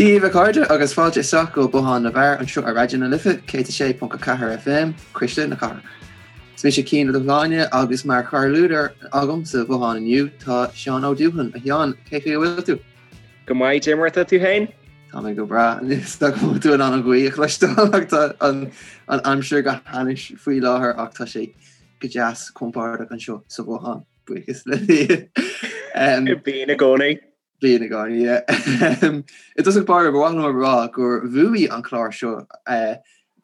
Dia daoibh a chairde agus fáilte isteach go Bothán na bhFear anseo ar Raidió na Life 106.4 FM, Cuisle na Cathrach. Is mise Cian Ó Dubhshláine agus mar chomhluadar agam sa bhothán inniu tá Seán Ó Dúthain. A Sheáin, cén chaoi a bhfuil tú? Go maith, Dé mar atá tú féin? Tá mé go breá. Is dócha go bhfuil tú in ann an ghaoth a chloisteáil ach tá an aimsir go hainnis faoi láthair ach tá sé go deas compordach anseo sa bhothán, buíochas le Dia. Bíonn i gcónaí. Bíonn i gcónaí, yeah. I dtosach báire, ba mhaith liom a rá gur bhuaigh an clár seo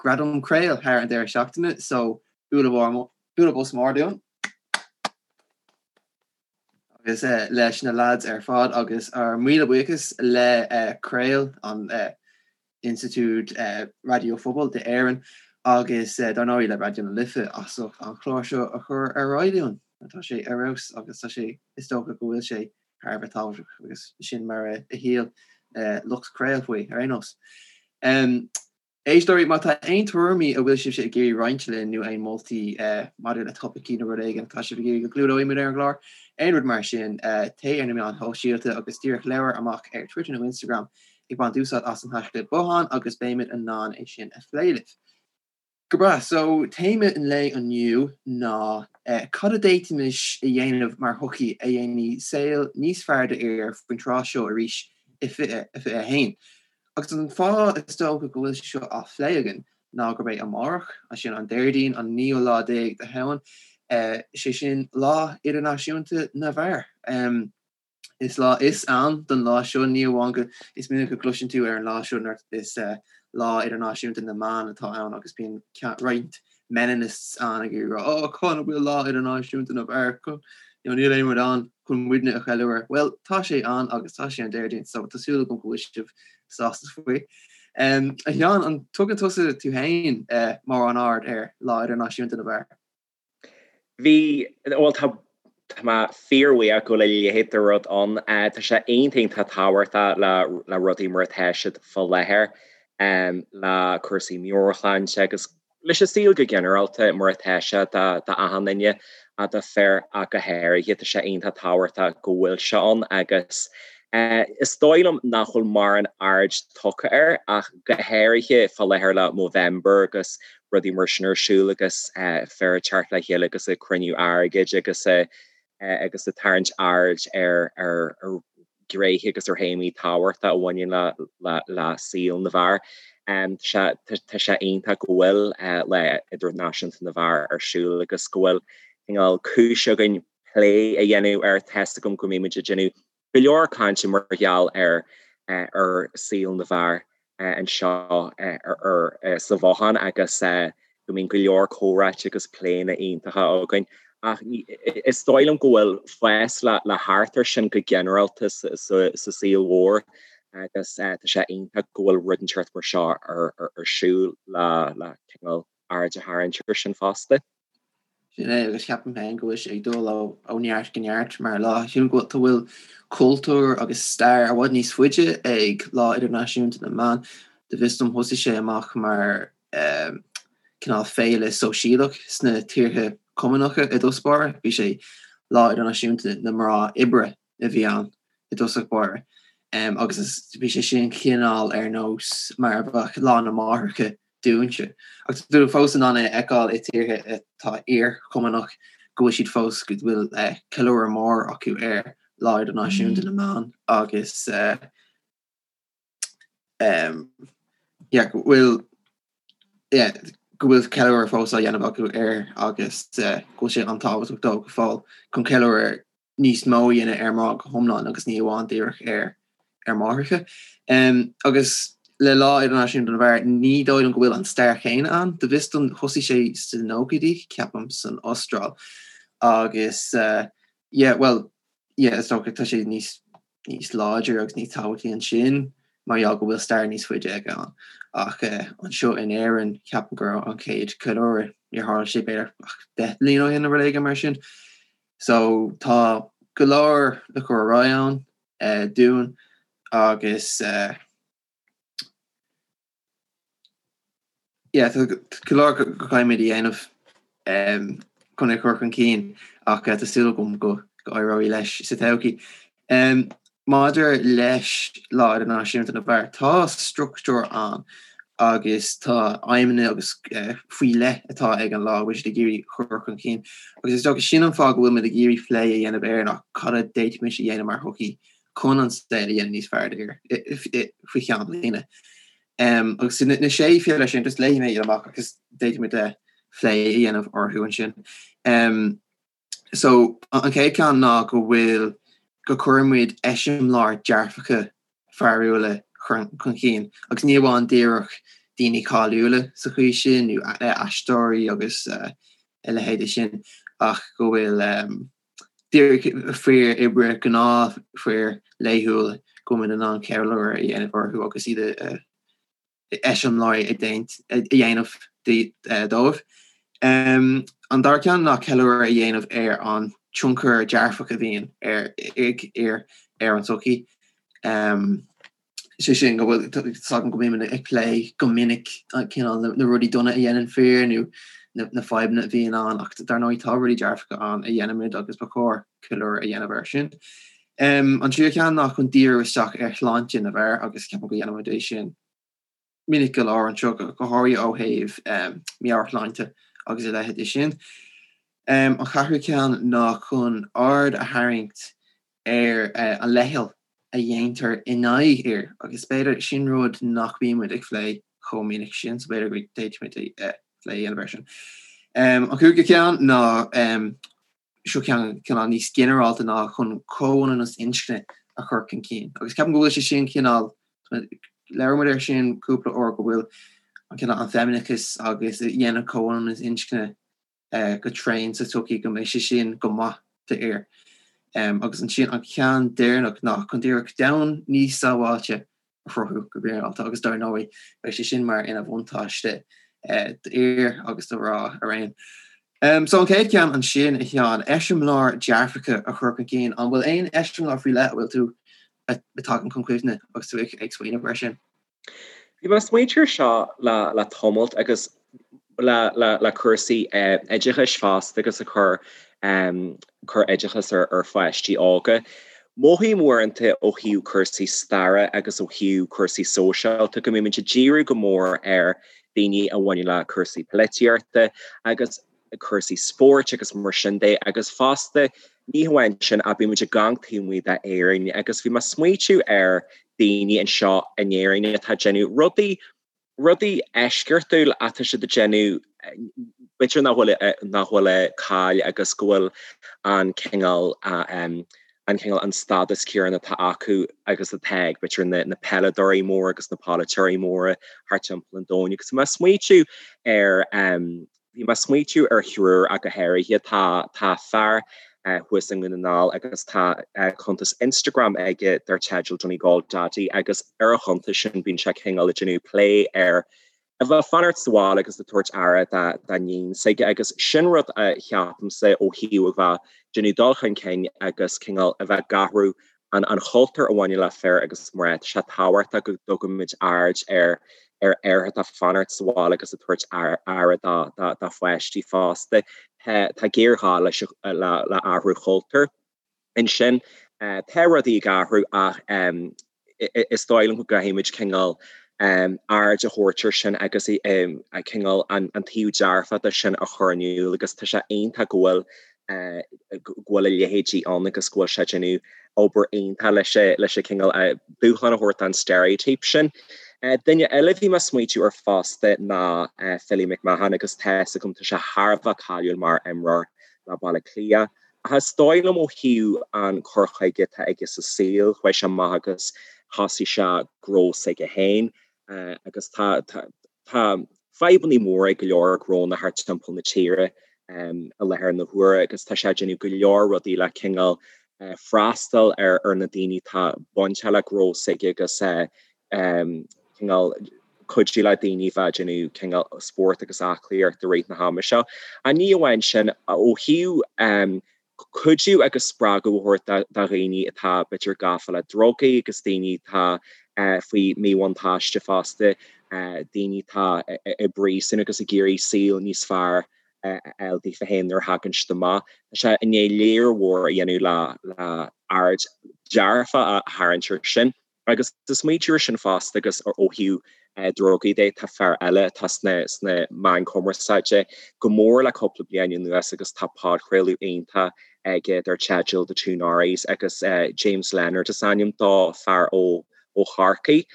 Gradam Craol thar an deireadh seachtaine, so bualadh bos mór dúinn agus leis na lads ar fad agus ár míle buíochas le Craol, an Institiúid Raidió Phobail d'Éirinn agus dar ndóigh le Raidió na Life as ucht an clár seo a chur ar aghaidh dúinn. Tá sé ar fheabhas agus tá sé, is dócha go bhfuil sé thar a bheith tábhachtach agus sin mar a shíl lucht Craol faoi ar aon nós. Éisteoirí, má tá aon tuairimí a bhfuil sibhse ag iarraidh roinnt linn nó aon moltaí maidir le topaicí nó rud éigin atá sibh ag iarraidh go gclúdóidh muid ar an gclár, aon rud mar sin, téigh ar na meáin shóisialta agus díreach labhair amach ar Twitter nó Instagram ag baint úsáid as an haischlib bothán agus beimid in ann é sin a phlé libh. Go breá, so téama an lae inniu ná cad a d'fhéadfaimis a dhéanamh mar shochaí a dhéanfaidh saol níos fearr d'fhir faoin tráth seo arís i 2021. Agus an fáth is dócha go bhfuil sé seo á phlé againn ná gurb é amárach, sin an Déardaoin an naoú lá déag de Shamhain, sé sin Lá Idirnáisiúnta na bhFear. Is lá is ann don lá seo, ní amháin go, is minic a gcloiseann tú ar an lá seo nuair is Lá Idirnáisiúnta na mBan atá ann agus bíonn roinnt meninists ann ag iarraidh rá oh cá bhfuil Lá Idirnáisiúnta na bhFear, you know, níl aon rud ann chun muidne a cheiliúradh. Bhuel, tá sé ann agus tá sé an Déardaoin so tá súil agam go bhfuil sibh sásta faoi. Um, a Sheáin, an dtugann tusa tú féin uh, mórán aird ar Lá Idirnáisiúnta na bhFear? Bhí, bhuel tá, tá mé fíorbhuíoch go bhfuil a leithéid de rud ann. Tá sé iontach iontach tábhachtach le, le rudaí mar atá siad fá láthair, le cúrsaí meabhairshláinte agus leis an saol go ginearálta mar atá sé do, d'achan duine, do fir ach go háirithe. Tá sé iontach tábhachtach go bhfuil sé ann agus is dóigh liom nach bhfuil mórán aird tugtha air ach go háirithe fá láthair le Movember agus rudaí mar sin ar siúl agus fir ag teacht le chéile agus ag cruinniú airgid agus agus ag tarraingt aird ar ar ghnéithe agus ar théamaí tábhachtacha a bhaineann le le le saol na bhfear. Tá tá sé iontach go bhfuil Lá Idirnáisiúnta na bhFear ar siúl agus go bhfuil cineál cúis againn plé a dhéanamh air. Tá's agam go mbímid ag déanamh go leor cainte mar gheall ar ar saol na bhfear anseo sa bhothán agus go mbíonn go leor comhráite agus pléanna iontacha againn. Ach is dóigh liom go bhfuil fás le theacht air sin go ginearálta sa saol mhór agus tá sé iontach go bhfuil rud inteacht mar seo ar siúl le cineál aird a tharraingt air sin fosta. Sin é, agus ceapaim féin go bhfuil sé ag dul ó neart go neart mar lá. Sílim go bhfuil cultúr agus stair i bhfad níos faide ag Lá Idirnáisiúnta na mBan. Go bhfios dom thosaigh sé amach mar cineál féile sóisialach sna tíortha Cumannacha i dtús báire. Bhí sé Lá Idirnáisiúnta na Mná Oibre a bhí ann i dtosach báire agus bhí sé sin cineál ar nós mar a bheadh Lá na Máithreacha dúinnse. Ach tá tú fós in ann é a fheiceáil i tíortha atá iar-Chumannach go bhfuil siad fós, go bhfuil ceiliúradh mór acu ar Lá Idirnáisiúnta na mBan agus yeah, go bhfuil yeah, go bhfuil ceiliúradh fós á dhéanamh acu air agus go bhfuil sé an-tábhachtach dóibh go fóill chun ceiliúradh níos mó a dhéanamh ar mná go hiomlán agus ní amháin díreach ar ar máithreacha. Agus le Lá Idirnáisiúnta na bhFear, ní dóigh liom go bhfuil an stair chéanna ann. Go bhfios dom thosaigh sé sna nóchaidí, ceapaim, san Astráil. Agus yeah, bhuel, yeah, is dócha tá sé níos níos láidre agus níos tábhachtaí ansin mar gheall go bhfuil stair níos faide aige ann. Ach anseo in Éirinn, ceapaim go raibh an chéad ceiliúradh, níor tharla sé b'fhéidir ach 10 mbliana ó shin nó rud éigin mar sin. So tá go leor le cur ar aghaidh ann dúinn agus yeah tá go leor go gcaithfimid a dhéanamh chun é a chur chun cinn ach tá súil agam go go éireoidh leis sa todhchaí. Maidir leis Lá Idirnáisiúnta na bhFear, tá struchtúr ann agus tá aidhmeanna agus faoi leith atá ag an lá a bhfuil siad ag iarraidh chur chun cinn. Agus is dócha sin an fáth go bhfuil muid ag iarraidh plé a dhéanamh air ná cad a d'fhéadfaimis a dhéanamh mar shochaí chun an saol a dhéanamh níos fearr d'fhir faoi cheann bliana. Agus na sé philéar sin, just léifidh mé iad amach agus d'fhéadfaimis plé a dhéanamh orthu ansin. So, an chéad cheann ná go bhfuil, go gcuireann muid eiseamláir dearfacha fearúla chun cinn, agus ní amháin díreach daoine cáiliúla sa chaoi sin, nó aisteoirí agus a leithéide sin, ach go bhfuil díreach fir oibre, gnáthfhir laethúla, go bhfuil muid in ann ceiliúradh a dhéanamh orthu agus iad a eiseamláirí a dhéanamh dóibh. An dara ceann ná ceiliúradh a dhéanamh ar an tionchar dearfach a bhíonn ag fir ar an tsochaí. Sé sin go bhfuil fhios agam go mbímid ag plé go minic cineál na rudaí dona a dhéanann fir nó na fadhbanna a bhíonn ann ach dar ndóigh tá rudaí dearfacha ann a dhéanaimid agus ba chóir ceiliúradh a dhéanamh air sin. An tríú ceann ná chun díriú isteach ar shláinte na bhfear agus ceapaim go dhéanaimid é sin minic go leor anseo, go háirithe ó thaobh meabhairshláinte agus a leithéid de sin. An ceathrú ceann ná chun aird a tharraingt ar an leithcheal a dhéantar in aghaidh fhir agus b'fhéidir sin rud nach mbíonn muid ag plé chomh minic sin so b'fhéidir go bhféadfaimid plé a dhéanamh air sin. An cúigiú ceann ná seo ceann cineál níos ginearálta ná chun comhionannas inscne a chur chun cinn. Agus ceapaim go bhfuil sé sin cineál, labhair muid air sin cúpla uair, go bhfuil an cineál an feimineachas agus a dhéanamh comhionannas inscne go tréan sa tsochaí, go mbeidh sé sin go maith d'fhir. Agus ansin an ceann deireanach ná chun díreach domhan níos sábháilte a chruthú go ginearálta agus dar ndóigh beidh sé sin mar ina bhuntáiste d'fhir agus do mhná araon. So an chéad cheann ansin, a Sheáin, eiseamláir dearfacha a chur chun cinn, an bhfuil aon eiseamláir faoi leith a bhfuil tú a tagann chun cuimhne agus tú ag smaoineamh air sin? Bhí mé ag smaointiú air seo le tamalt agus le cúrsaí oideachais fosta agus ag cur cur oideachas ar pháistí óga. Mothaím uaireanta ó thaobh cúrsaí staire agus ó thaobh cúrsaí sóisialta go mbímid ag díriú go mór ar daoine a bhaineann le cúrsaí polaitíochta agus cúrsaí spóirt agus mar sin de agus fosta ní hamháin sin ach bímid ag amharc taobh amuigh d'Éirinn agus bhí mé ag smaoitiú ar daoine anseo in Éirinn atá ag déanamh rudaí rudaí eisceachtúil atá siad ag déanamh, b'fhéidir nach bhfuil nach bhfuil cáil agus go bhfuil an cineál an cineál an stádas céanna atá acu agus atá ag b'fhéidir na na peileadóirí móra agus na polaiteoirí móra thart timpeall an domhain agus bhí mé ag smaoitiú ar Bhí mé ag smaoitiú ar thriúr ach go háirithe. Tá tá fear thuas i nDún na nGall agus tá cuntas Instagram aige dar teideal Donegal Daddy agus ar a chuntas sin bíonn sé cineál ag déanamh plé ar a bheith ag fanacht sa bhaile agus ag tabhairt aire dá dá níon s'aige agus sin rud a cheapaimse ó thaobh a bheith déanamh dul chun cinn agus cineál a bheith ag athrú an an chultúr a bhaineann le fir agus mná. Tá sé tábhachtach go dtugaimid aird ar ar fhear atá ag fanacht sa bhaile agus ag tabhairt aire dá dá dá pháistí fosta. Tá tá géarghá leis le le athrú chultúir. Ansin tá rudaí ag athrú ach is dóigh liom go gcaithfimid cineál aird a thabhairt ar sin agus cineál an taobh dearfach de sin a chur in iúl agus tá sé iontach go bhfuil go bhfuil a leithéidí ann agus go bhfuil sé ag déanamh obair iontach leis leis an cineál dúshlán a thabhairt don stereotype sin. Duine eile a bhí mé ag smaoitiú air fosta ná Philly McMahon agus tá fhios agam tá sé thar a bheith cáiliúil mar imreoir le Baile Átha Cliath ach is dóigh liom ó thaobh an cur chuige atá aige sa saol, chuaigh sé amach agus thosaigh sé gnó s'aige féin agus tá tá fadhbanna móra ag go leor gnónna thart timpeall na tíre i láthair na huaire agus tá sé ag déanamh go leor rudaí le cineál freastal ar ar na daoine atá bainteach le gnó s'aige agus cineál cuidiú le daoine bheith ag déanamh cineál spórt agus aclaíocht i rith na hama seo. Ach ní amháin sin, ó thaobh cuidiú agus spreagadh a thabhairt do dhaoine atá b'fhéidir gafa le drugaí agus daoine atá faoi mhíbhuntáiste fosta, daoine atá i bpríosún agus ag iarraidh saol níos fearr a fháil daofa féin nuair a thagann siad amach. Tá sé i ndiaidh lear mhór a dhéanamh le le aird. dearfach a tharraingt air sin. Agus ag smaointiú air sin fosta agus ó thaobh drugaí de, tá fear eile atá sna meáin chumarsáide go mór le cúpla bliain anuas agus tá podchraoladh iontach aige dar teideal The Two Norries agus James Leonard is ainm dó, fear ó Chorcaigh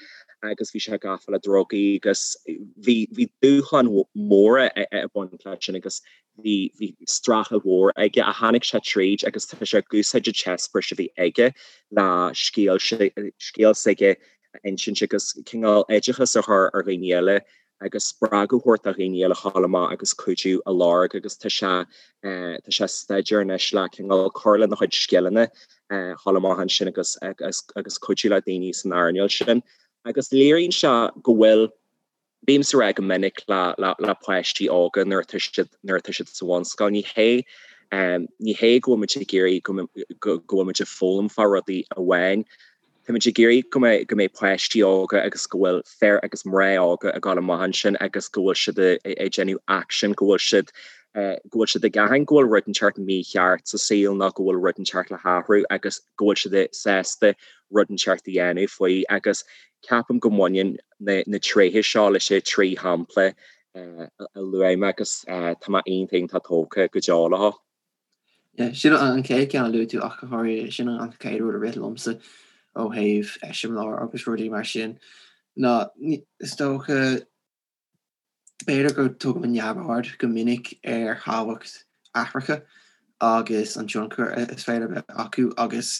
agus bhí sé gafa le drugaí agus bhí dúshláin mhóra ag baint leis sin agus Bhí, bhí streachailt mhór aige ach tháinig sé tríd agus tá sé ag úsáid an t-eispéireas a bhí aige le scéal, scéal s'aige a insint agus cineál oideachas a chur ar dhaoine eile agus spreagadh a thabhairt do dhaoine eile a ghabháil amach agus cuidiú a lorg agus tá sé, tá sé ag staidéar anois le cineál cur lena chuid scileanna a ghabháil amach ansin agus, agus, agus cuidiú le daoine san earnáil sin agus léiríonn sé go bhfuil Bímse ag rá go minic le páistí óga nuair atá siad nuair atá siad sa bhunscoil, ní hé ní hé go bhfuil muid ag iarraidh go go bhfuil muid ag foghlaim fá rudaí amháin. Tá muid ag iarraidh go mbeidh go mbeidh páistí óga agus go bhfuil fir agus mná óga ag dul amach ansin agus go bhfuil siad ag déanamh action, go bhfuil siad go bhfuil siad ag aithint go bhfuil rud inteacht mícheart sa saol nó go bhfuil rud inteacht le hathrú agus go bhfuil siad sásta rud inteacht a dhéanamh faoi agus ceapaim go mbaineann na tréithe seo leis an 3 shampla a luaigh mé agus tá mé iontach iontach tógtha go deo leo. Yeah, sin an chéad ceann a luaigh tú ach go háirithe, sin an chéad rud a rith liomsa ó thaobh eiseamláir agus rudaí mar sin ná is dócha b'fhéidir go dtugaimid neamhaird go minic ar thábhacht aithreacha agus an tionchar is féidir a bheith acu agus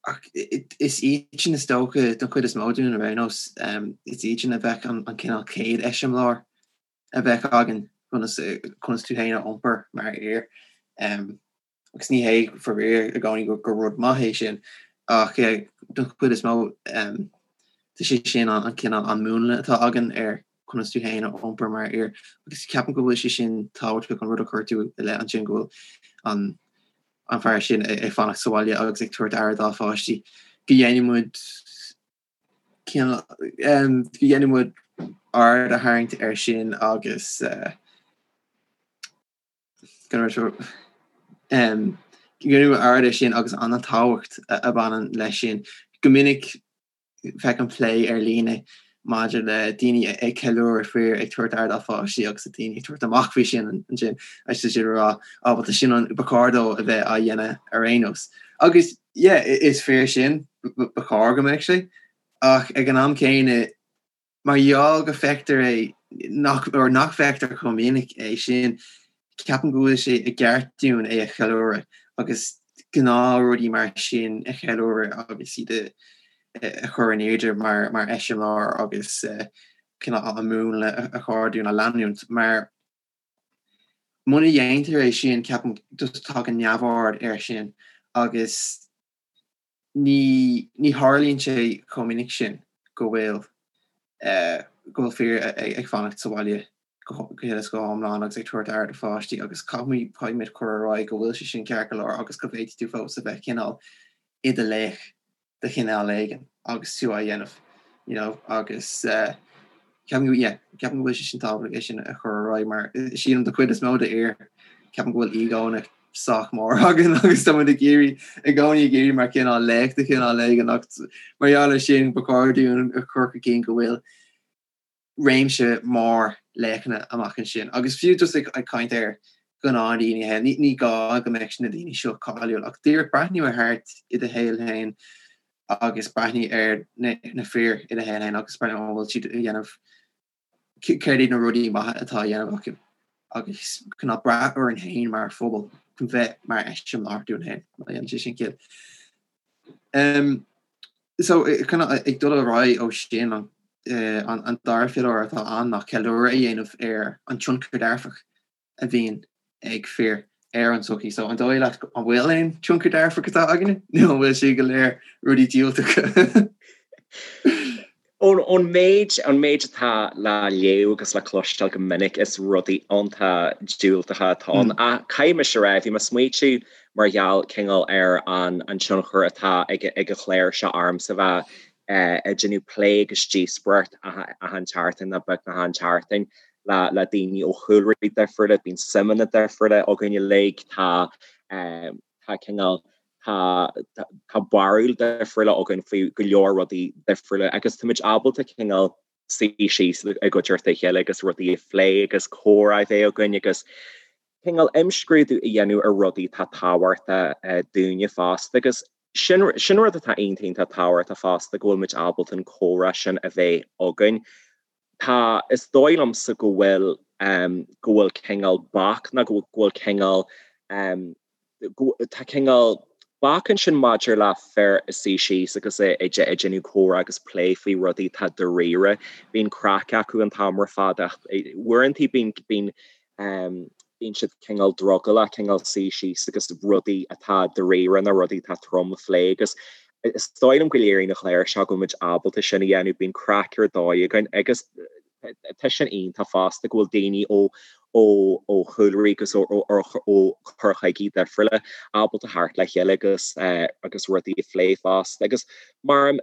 Ach is iad sin is dócha, don chuid is mó dúinn ar aon nós, is iad sin a bheadh an cineál chéad eiseamláir a bheadh againn conas conas tú féin a iompar mar fhear. Agus ní hé faraor i gcónaí gur rud maith é sin, ach don chuid is mó tá sé sin an cineál an múnla atá againn ar conas tú féin a iompar mar fhear. Agus ceapaim go bhfuil sé sin tábhachtach an rud a chuir tú i leith ansin go bhfuil an an fear sin ag fanacht sa bhaile agus ag tabhairt aire dá pháistí, go ndéanfaidh muid go ndéanfaidh muid aird a tharraingt air sin agus go ndéanfaidh muid aird air sin agus an tábhacht a bhaineann leis sin. Go minic feicim plé ar líne maidir le daoine ag ceiliúradh fir ag tabhairt aire dá pháistí agus daoine ag tabhairt amach faoi sin ansin agus tá siad ag rá á bhuel tá sin an ba chóir dó a bheith á dhéanamh ar aon nós. Agus yeah is fíor sin ba chóir go mbeadh sé ach ag an am céanna Mar gheall go bhfeictear é nach, or nach bhfeictear chomh minic é sin, ceapaim go bhfuil sé i gceart dúinn é a cheiliúradh agus gnáthrudaí mar sin a cheiliúradh agus iad a chur in airde mar mar eiseamláir agus cineál an múnla a chóir dúinn a leanúint. Mar muna dhéantar é sin, ceapaim just tagann neamhaird air sin agus ní ní tharlaíonn sé chomh minic sin go bhfuil go bhfuil fir ag fanacht sa bhaile go huile is go hiomlán agus ag tabhairt aire do pháistí agus caithfimid caithfimid cur ar aghaidh go bhfuil sé sin ceart go leor agus go bhféadfaidh tú fós a bheith cineál i do laoch de chineál éigin agus tú á dhéanamh you know agus ceapaim go yeah ceapaim go bhfuil sé sin tábhachtach é sin a chur ar aghaidh mar sílim don chuid is mó d'fhir ceapaim go bhfuil ego-anna sách mór againn agus tá muid ag iarraidh i gcónaí ag iarraidh mar cineál laoch de chineál éigin ach mar gheall air sin ba chóir dúinn a chur chun cinn go bhfuil réimse mór laochanna amach ansin agus fiú just ag caint ar ghnáthdaoine féin ní ní gá go mbeadh na daoine seo cáiliúil ach díreach breathnú ar thart i do shaol féin agus breathnú ar na na fir i do shaol féin agus breathnú an bhfuil siad a dhéanamh céard iad na rudaí maithe atá á dhéanamh acu agus cineál brath orainn féin mar phobal chun bheith mar eiseamláir dúinn féin, má dhéanann sé sin ciall. Um, so cineál ag dul ar aghaidh ó sin an, eh, an, an dara phiolar atá ann ná ceiliúradh a dhéanamh ar an tionchar dearfach a bhíonn ag fir ar an tsochaí. So an dóigh leat an bhfuil aon tionchar dearfach atá againne nó an bhfuil sé go léir rudaí diúltacha? Ón méid an méid atá le léamh agus le cloisteáil go minic is rudaí iontach diúltacha atá ann. Ach caithfidh mise a rá, bhí mé ag smaoitiú mar gheall cineál ar an an tionchar atá ag ag an chlár seo ormsa bheith ag déanamh plé agus díospóireacht achan tseachtain nó beagnach achan tseachtain le le daoine ó chúlraí difriúla, bíonn suimeanna difriúla againn uilig, tá tá cineál. Tá tá barúil difriúla againn faoi go leor rudaí difriúla agus táimid ábalta cineál suí síos i gcuideachta a chéile agus rudaí a phlé agus comhrá a bheith againn agus cineál imscrúdú a dhéanamh ar rudaí atá tábhachtach dúinne fosta agus sin sin rud atá iontach iontach tábhachtach fosta go bhfuil muid ábalta an comhrá sin a bheith againn. Tá, is dóigh liomsa go bhfuil go bhfuil cineál bac nó go bhfuil cineál tá cineál bac ansin maidir le fir a suí síos agus ag déanamh comhrá agus plé faoi rudaí atá dáiríre. Bíonn craic acu an t-am ar fad ach uaireanta bíonn bíonn bíonn siad cineál drogallach cineál suí síos agus rudaí atá dáiríre nó rudaí atá trom a phlé agus is dóigh liom go léiríonn an clár seo go bhfuil muid ábalta sin a dhéanamh, bíonn craic ar dóigh againn agus tá sin iontach fosta go bhfuil daoine ó ó ó chúlraí agus ó ó ó chur chuigí difriúla ábalta theacht le chéile agus agus rudaí a phlé fosta agus mar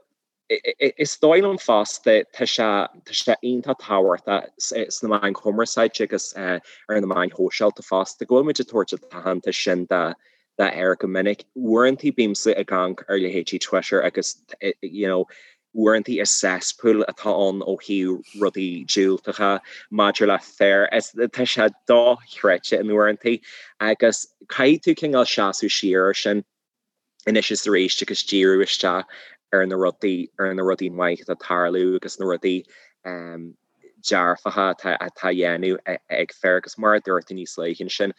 is dóigh liom fosta tá sé tá sé iontach tábhachtach sna meáin chumarsáide agus ar na meáin shóisialta fosta go bhfuil muid ag tabhairt an t-aitheantas sin do d'fhir go minic. Uaireanta bímse ag amharc ar leithéidí Twitter agus you know uaireanta is cesspool atá ann ó thaobh rudaí diúltacha maidir le fir. Is tá sé dochreidte in uaireanta agus caithfidh tú cineál seasamh siar ar sin anois is arís agus díriú isteach ar na rudaí ar na rudaí maith atá ag tarlú agus na rudaí um, dearfacha atá á dhéanamh ag fir agus mar a dúirt tú níos luaithe ansin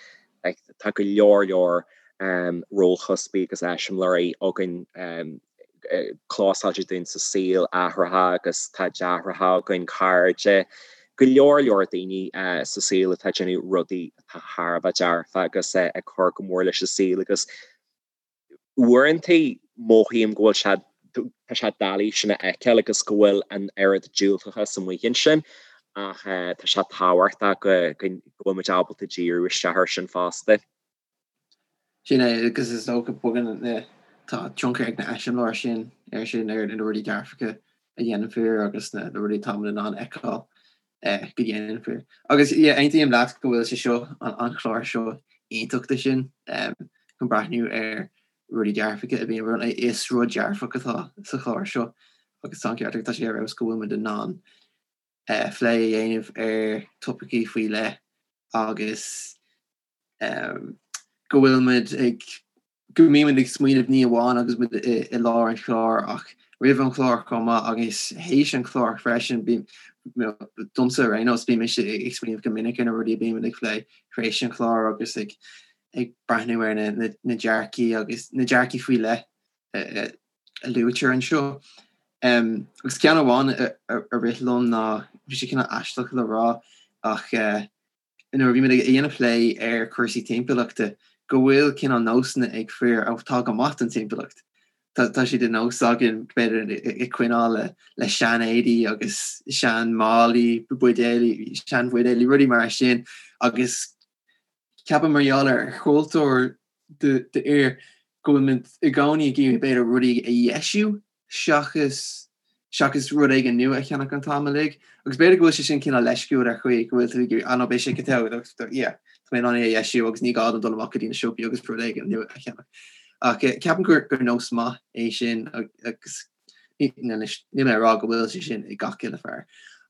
tá go leor leor rólchuspaí agus eiseamláirí againn closáilte dúinn sa saol, aithreacha agus tá deartháireacha againn, cairde, go leor leor daoine sa saol atá ag déanamh rudaí atá thar a bheith dearfa agus ag cur go mór leis an saol agus Uaireanta mothaím go bhfuil sé, tá sé doiligh sin a fheiceáil agus go bhfuil an oiread diúltachas amuigh ansin ach tá sé tábhachtach go bhfuil muid ábalta díriú isteach air sin fosta. Sin é, agus is dócha bogann na, tá tionchar ag na eiseamláirí sin air sin, ar na rudaí dearfacha a dhéanann fir agus na rudaí atá muid in ann a fheiceáil go ndéanann fir. Agus yeah, aontaím leat go bhfuil sé seo, an chlár seo iontach do sin, chun breathnú ar rudaí dearfacha a bhíonn, is rud dearfach atá sa chlár seo agus tá an ceart agat, tá sé ar fheabhas go bhfuil muid in ann plé a dhéanamh ar topaicí faoi leith agus go bhfuil muid ag go mbímid ag smaoineamh ní amháin agus muid i lár an chláir ach roimh an chlár chomh maith agus théis an chláir freisin. Bím, domsa ar aon nós, bím mise ag smaoineamh go minic ar na rudaí a bímid ag plé tar éis an chláir agus ag ag breathnú ar na na dearcaí agus na dearcaí faoi leith a luaitear anseo. Agus ceann amháin a rith liom ná, bhí sé cineál aisteach le rá ach, nuair a bhí muid ag déanamh plé ar chúrsaí timpeallachta, go bhfuil cineál nósanna ag fir atá go maith don timpeallacht. Tá sé de nós againn, b'fhéidir, ag coinneáil le sean-éadaí agus sean-málaí, buidéalaí, sean-bhuidéalaí, rudaí mar sin agus ceapaim mar gheall ar chultúr d'fhir go bhfuil muid i gcónaí ag iarraidh b'fhéidir rudaí a dheisiú seachas seachas rud éigin nua a cheannach an t-am uilig. Agus b'fhéidir go bhfuil sé sin cineál leisciúil ar chaoi, go bhfuil tú ag iarraidh, ah no, beidh sé go togha, yeah, tá mé in ann é a dheisiú agus ní gá dom dul amach go dtí na siopaí agus rud éigin nua a cheannach. Ach ceapaim gur gur nós maith é sin agus anois níl mé ag rá go bhfuil sé sin ag gach uile fear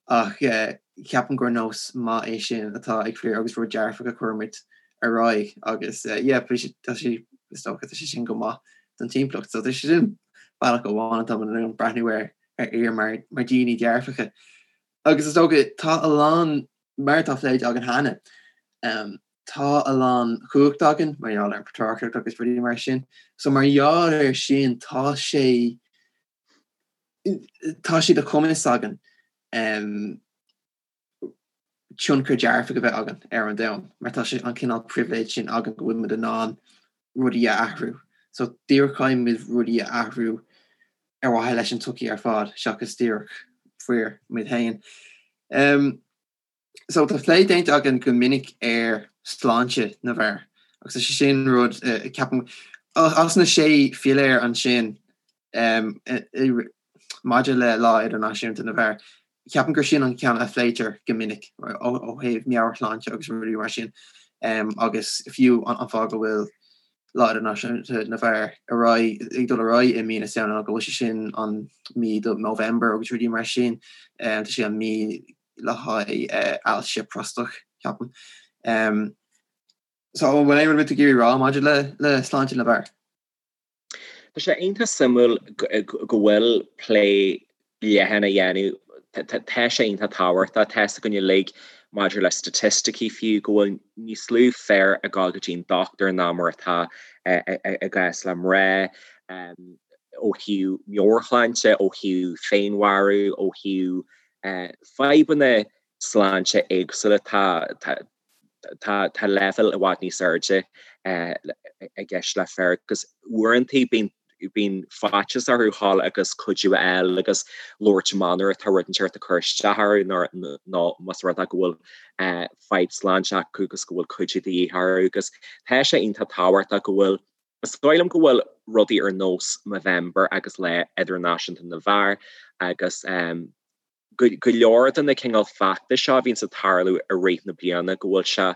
ach ceapaim gur nós maith é sin atá ag fir agus rud dearfach a chuirimid ar aghaidh agus yeah, tá sé is dócha tá sé sin go maith don timpeallacht. So tá sé sin bealach amháin atá muid in ann breathnú ar ar fhir mar mar daoine dearfacha. Agus is dócha tá a lán mar atá pléite againn cheana, um, tá a lán cumhacht againn mar gheall ar an patrarcacht agus rudaí mar sin. So mar gheall ar sin tá sé tá sé de chumas againn um, tionchar dearfach a bheith againn ar an domhan mar tá sé an cineál pribhléid sin againn go bhfuil muid in ann rudaí a athrú. So díreach caithfidh muid rudaí a athrú ar mhaithe leis an tsochaí ar fad seachas díreach fir muid féin. Um, so tá plé déanta againn go minic ar sláinte na bhfear agus tá sé sin rud uh, ceapaim as na sé philéar ansin um, maidir le Lá Idirnáisiúnta na bhFear, ceapaim gur sin an ceann a phléitear go minic ó thaobh meabhairshláinte agus rudaí mar sin agus fiú an fáth go bhfuil. Lá Idirnáisiúnta na bhFear ar aghaidh, ag dul ar aghaidh i mí na Samhna ná go bhfuil sé sin an mí do Movember agus rudaí mar sin. Tá sé an mí le haghaidh ailse próstatach, ceapaim. So an bhfuil aon rud tú ag iarraidh rá maidir le le sláinte na bhfear? Tá sé iontach suimiúil go bhfuil plé leathan á dhéanamh. Tá sé iontach tábhachtach. Tá 'fhios againn uilig maidir le staitisticí fiú go bhfuil níos lú fir ag dul go dtí an dochtúir ná mar atá i gcás le mná ó thaobh meabhairshláinte, ó thaobh féinmharú, ó thaobh fadhbanna sláinte éagsúla. Tá tá tá leibhéal i bhfad níos airde i gceist le fir agus uaireanta bíonn bíonn faitíos orthu dhul agus cuidiú a fháil agus labhairt amach nuair atá rud inteacht ag cur isteach orthu nó más rud é go bhfuil fadhb sláinte acu agus go bhfuil cuidiú de dhíth orthu agus tá sé iontach tábhachtach go bhfuil Is dóigh liom go bhfuil rudaí ar nós Movember agus Lá Idirnáisiúnta na bhFear agus go leor de na cineál feachtais seo a bhíonns ag tarlú i rith na bliana go bhfuil sé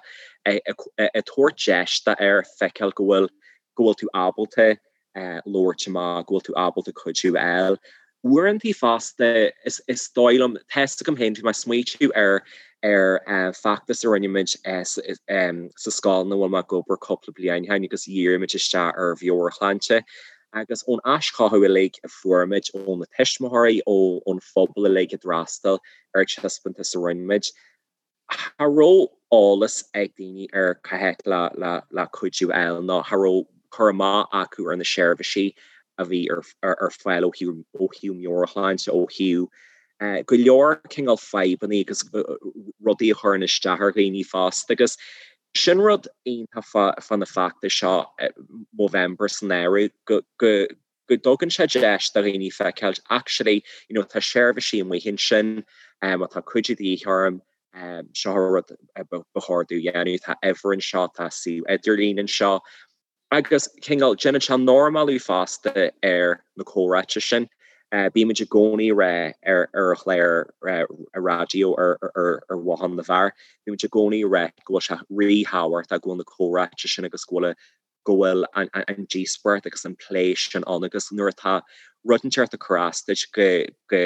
ag tabhairt deis d'fhear feiceáil go bhfuil go bhfuil tú ábalta labhairt amach, go bhfuil tú ábalta cuidiú a fháil. Uaireantaí fosta is is dóigh liom, tá 'fhios agam féin, bhí mé ag smaoitiú ar ar feachtas a rinne muid sa scoil ina bhfuil mé ag obair cúpla bliain ó shin agus dhírigh muid isteach ar mheabhairshláinte Agus ón aischothú uilig a fuair muid ó na tuismitheoirí, ón phobal uilig a d'fhreastail ar an taispeántas a rinne muid, cha raibh eolas ag daoine ar cá háit le cuidiú a fháil nó cha raibh cur amach acu ar na seirbhísí a bhí ar fáil ó thaobh meabhairshláinte, ó thaobh go leor cineál fadhbanna agus rudaí a chuireann isteach ar dhaoine fosta. Agus Sin rud iontach fá na feachtais seo, Movember san áireamh, go dtugann sé deis do dhaoine feiceáil actually, you know, tá seirbhísí amuigh ansin, má tá cuidiú de dhíth orm, seo an rud ba chóir domh a dhéanamh, tá uimhir anseo, tá suíomh idirlín anseo. Agus cineál, déanann sé normalú fosta ar na comhráite sin. Bímid i gcónaí ag rá ar ar chlár raidió ar ar Bhothán na bhFear, bímid i gcónaí ag rá go bhfuil sé ríthábhachtach go bhfuil na comhráite sin agus go bhfuil go bhfuil an díospóireacht agus an plé sin ann agus nuair atá rud inteacht ag cur as duit go go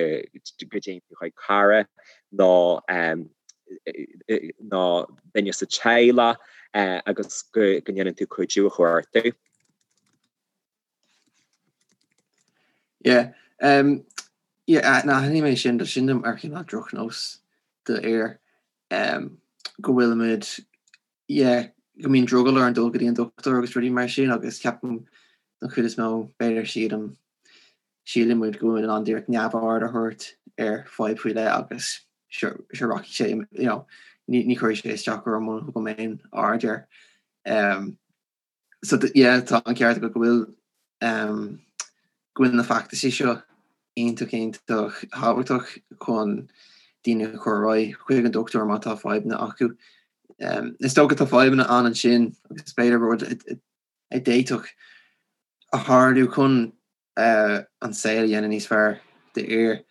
go dtéann tú chuig cara nó nó duine sa teaghlach agus go ndéanann tú cuidiú a chuartú. Yeah. Um, yeah, na aithním é sin, sin mar chineál drochnós d'fhir um, go bhfuilimid yeah, go mbíonn drogall orainn dul go dtí an dochtúir agus rudaí mar sin agus ceapaim don chuid is mó b'fhéidir sílim síleann muid go bhfuil in ann díreach neamhaird a thabhairt ar fadhb faoi leith agus sure rachaidh sé you know, ní, ní chuirfidh sé isteach orm muna thugaim aon aird air. Um, so yeah, tá an ceart agat go bhfuil um, go bhfuil na feachtaisí seo iontach iontach tábhachtach chun daoine a chur ar aghaidh chuig an dochtúir má tá fadhbanna acu. Um, is dócha tá fadhbanna ann ansin agus b'fhéidir rud a d'fhéadfadh a tharlú chun an saol a dhéanamh níos fearr d'fhir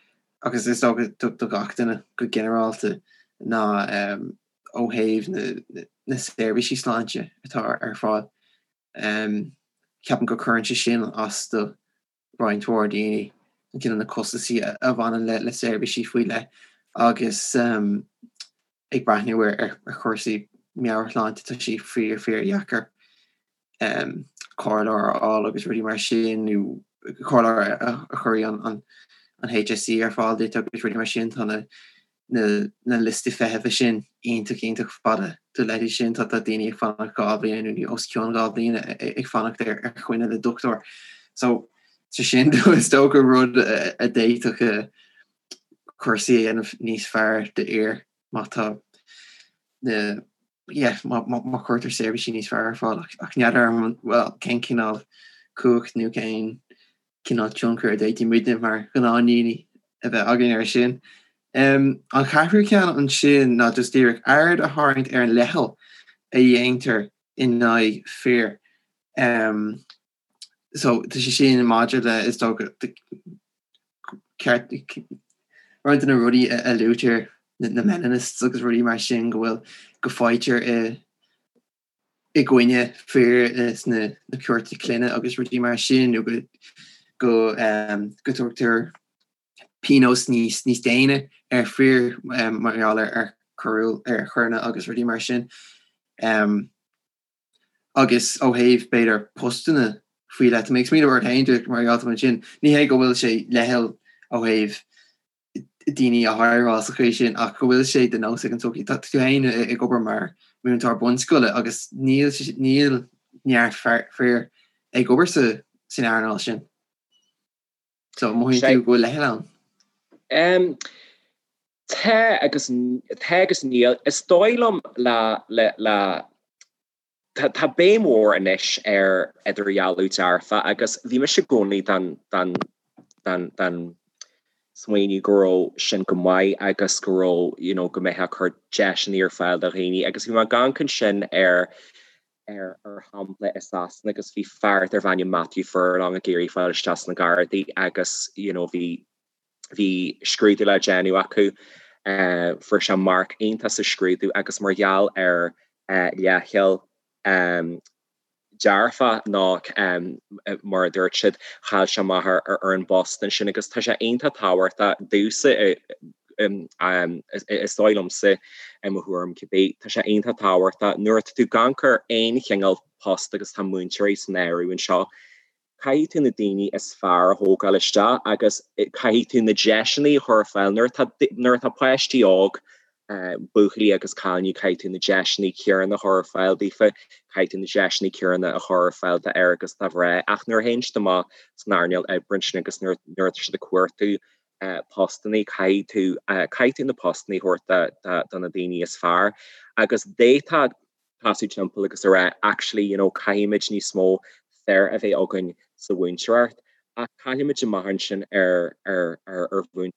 agus is dócha do gach duine go ginearálta ná ó thaobh na seirbhísí sláinte atá ar fáil. Ceapaim go cuireann sé sin as do roinnt mhór daoine, an cineál na costasaí a bhaineann le seirbhísí faoi leith agus ag breathnú ar chúrsaí meabhairshláinte tá sé fíor fíor dheacair comhairleoir a fháil agus rudaí mar sin nó comhairleoir a chuirfidh an an HSE ar fáil duit agus rudaí mar sin tá na na na liostaí feithimh sin iontach iontach fada do leithéid sin tá tá daoine ag fanacht 2 bhliain nó os cionn 2 bhliain ag fanacht ar ar choinne le dochtúir so so sin is dócha rud a d'fhéadfadh cúrsaí a dhéanamh níos fearr d'fhir má tá na yeah má má chuirtear seirbhísí níos fearr ar fáil ach ach n'fheadar well cén cineál cumhacht nó cén cineál tionchar a d'fhéadfadh muidne mar ghnáthdhaoine a bheith againn air sin. An ceathrú ceann ansin ná just díreach aird a tharraingt ar an leithcheal a dhéantar in aghaidh fir. So tá sé sin maidir le is dócha ceart roinnt de na rudaí a luaitear na meninists agus rudaí mar sin go bhfuil go faightear i. I gcoinne fir sna cúirteanna clainne agus rudaí mar sin nó go go go dtugtar pionós níos níos déine ar fir mar gheall ar ar choiriúil ar choireanna agus rudaí mar sin. Agus ó thaobh b'fhéidir postanna faoi leith, tá mé ag smaoineamh ort féin díreach mar gheall ansin, ní hé go bhfuil sé leithcheal ó thaobh daoine a hireáil sa chaoi sin ach go bhfuil sé de nós ag an tsochaí. Tá tú féin ag obair mar mhúinteoir bunscoile agus níl níl neart fir ag obair sa san earnáil sin. So mothaíonn tú go bhfuil leithcheal ann? Tá agus tá agus níl. Is dóigh liom le le le Tá béim mhór anois ar idirdhealú dearfa agus bhí mise i gcónaí den den den den smaoineamh go raibh sin go maith agus go raibh you know go mbeifeá ag cur deiseanna ar fáil do dhaoine agus bhí mé ag amharc ansin ar ar ar shampla i Sasana agus bhí fear darbh ainm Matthew Furlong ag iarraidh fáil isteach sna Gardaí agus you know bhí Bhí scrúdú le déanamh acu. Fuair sé marc iontach sa scrúdú agus mar gheall ar leithcheal dearfach nó mar a dúirt siad, chaill sé amach ar an bpost ansin agus tá sé iontach tábhachtach domhsa, is dóigh liomsa, i mo thuairim cibé, tá sé iontach tábhachtach nuair atá tú ag amharc ar aon chineál post agus tá múinteoirí san áireamh anseo, Caithfidh tú na daoine is fearr a thógáil isteach agus caithfidh tú na deiseanna a chur ar fáil. Nuair atá, nuair atá páistí óg, buachaillí agus cailíní, caithfidh tú na deiseanna céanna a chur ar fáil daofa, caithfidh tú na deiseanna céanna a chur ar fáil d'fhir agus do mhná. Ach nuair a théann siad amach san earnáil oibre ansin agus nuair, nuair atá siad ag cuartú postanna, caithfidh tú, caithfidh tú na postanna a thabhairt do, do, do na daoine is fearr. Agus d'fhéadfá tosú timpeall agus a rá actually you know caithfimid níos mó fir a bheith againn sa mhúinteoireacht ach caillfimid amach ansin ar ar ar ar mhúin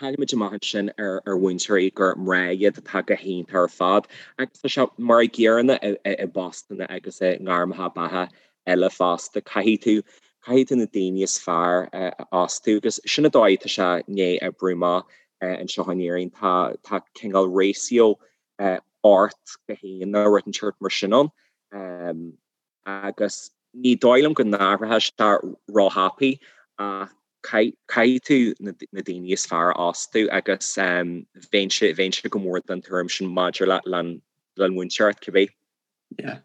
caillfimid amach ansin ar ar mhúinteoirí gur mná iad atá go hiontach ar fad agus tá sé mar an gcéanna i i i bpostanna agus i ngairmeacha beatha eile fosta. Caithfidh tú caithfidh tú na daoine is fearr a fhostú agus sin an dóigh atá sé i ndiaidh oibriú amach anseo in Éirinn. Tá tá cineál ratio 8 go 1 nó rud inteacht mar sin ann agus ní dóigh liom go n-athróidh sé róthapaidh ach caithfidh tú na daoine is fearr a fhostú agus bheinnse bheinnse go mór den tuairim sin maidir le le le múinteoireacht cibé. Yeah.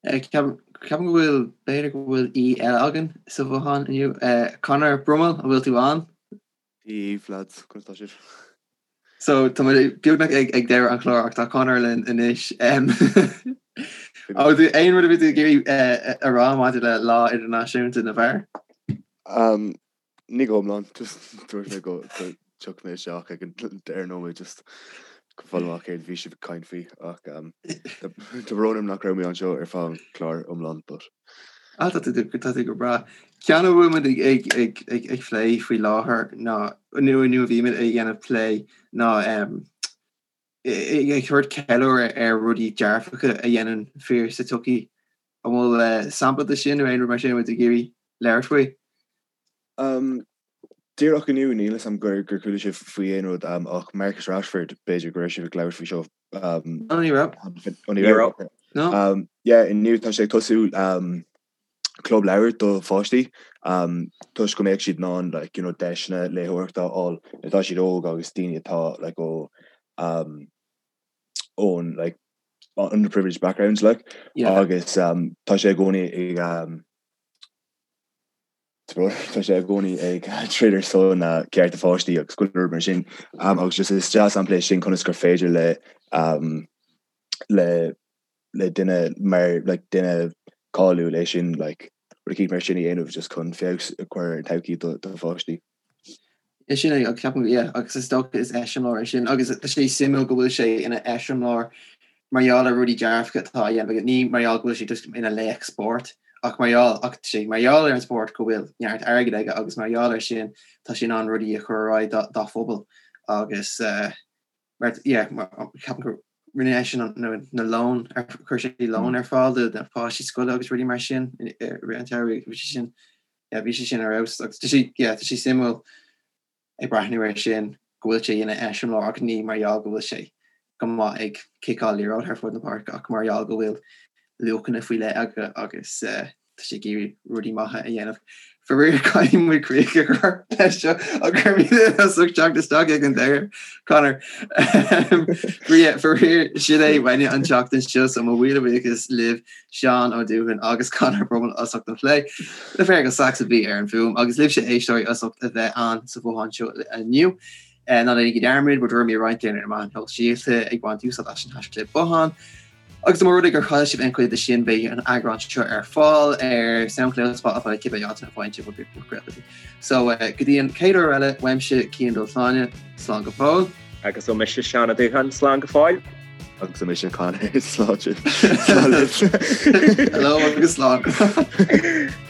Ceapaim go bhfuil, b'fhéidir go bhfuil aoi eile againn sa bhothán inniu. Conor Brummel, an bhfuil tú ann? Dia daoibh, lads, conas tá sibh? So, tá muid beagnach ag ag deireadh an chláir ach tá Conor linn anois. Ó, do aon rud a bhí tú ag iarraidh a rá maidir le Lá Idirnáisiúnta na bhFear? Ní go hiomlán, just dúirt mé go dtiocfaidh mé isteach ag an deireadh nóiméad just go fáil amach céard a bhí sibh ag caint faoi ach tá brón orm nach raibh mé anseo ar feadh an chláir iomlán but. Ah tá tú tá tú go breá. Ceann a bhfuil muid ag ag ag ag ag plé faoi láthair ná nó nó a bhí muid ag dhéanamh plé ná ag tabhairt ceiliúradh ar rudaí dearfacha a dhéanann fir sa tsochaí. An bhfuil sampla de sin nó aon rud mar sin a bhfuil tú ag iarraidh labhairt faoi? Díreach inniu, níl 'fhios a'm gur gur chuala sibh faoi aon rud ach Marcus Rashford, b'fhéidir go raibh sibh ag labhairt faoi seo. Ó ní raibh. Ó ní raibh. No. Yeah, inniu tá sé ag tosú club leabhar do pháistí toisc go mbeadh siad in ann like, you know, deiseanna léitheoireachta a fháil nuair atá siad óg agus daoine atá like, ó um, ón like, underprivileged backgrounds like, yeah. agus um, tá sé i gcónaí ag um, tá sé i gcónaí ag troid ar son uh, cearta pháistí agus go leor mar sin um, agus just is dea-sampla é sin conas gur féidir le um, le le duine mar like, duine cáiliúil é sin like, rud eicínt mar sin a dhéanamh just chun feabhas a chur ar an todhchaí do, do pháistí. É sin é, agus ceapaim, yeah, agus is dócha is eiseamláir é sin, agus tá sé suimiúil go bhfuil sé ina eiseamláir mar gheall ar rudaí dearfacha atá á dhéanamh aige, ní mar gheall go bhfuil sé just ina laoch spóirt, ach mar gheall, ach tá sé mar gheall ar an spórt go bhfuil neart airgid aige agus mar gheall air sin tá sé in ann rudaí a chur ar aghaidh dá, dá phobal agus eh, mar, yeah, mar, ceapaim gur rinne eisean an, na, na lón, ar, chuir sé lón ar fáil do na páistí scoile agus rudaí mar sin i rith an tsamhraidh, bhí sé sin, yeah, bhí sé sin ar fheabhas agus tá sé, yeah, tá sé suimiúil ag breathnú air sin go bhfuil sé ina eiseamláir ach ní mar gheall go bhfuil sé. go maith ag ciceáil liathróid thar fud na páirce ach mar gheall go bhfuil luachanna faoi leith aige agus tá sé ag iarraidh rudaí maithe a dhéanamh. Faraor caithfidh muid críoch a chur leis seo ach go raibh míle as ucht teacht isteach ag an deireadh, Conor. Faraor sin é uainne an tseachtain seo so mo mhíle buíochas libh Seán Ó Dúthain agus Conor Brummel as ucht an phlé. Le Feargal Saxe a bhí ar an bhfuaim agus libhse éisteoirí as ucht a bheith ann sa bhothán seo inniu. Ná déanaigí dearmad bhur dtuairimí a roinnt ar na meáin shóisialta ag baint úsáid as an haischlib bothán. Agus mura rud é gur chaill sibh aon chuid de sin beidh an eagrán seo ar fáil ar Soundcloud, Spotify, cibé áit a bhfaigheann sibh bhur gcuid podchraoltaí. So go dtí an chéad uair eile, uaimse Cian Dubhshláine, slán go fóill. Agus ó mise Seán Ó Dúthain, slán go fóill. Agus ó mise Conor, slán sibh. Slán libh. Hello agus slán.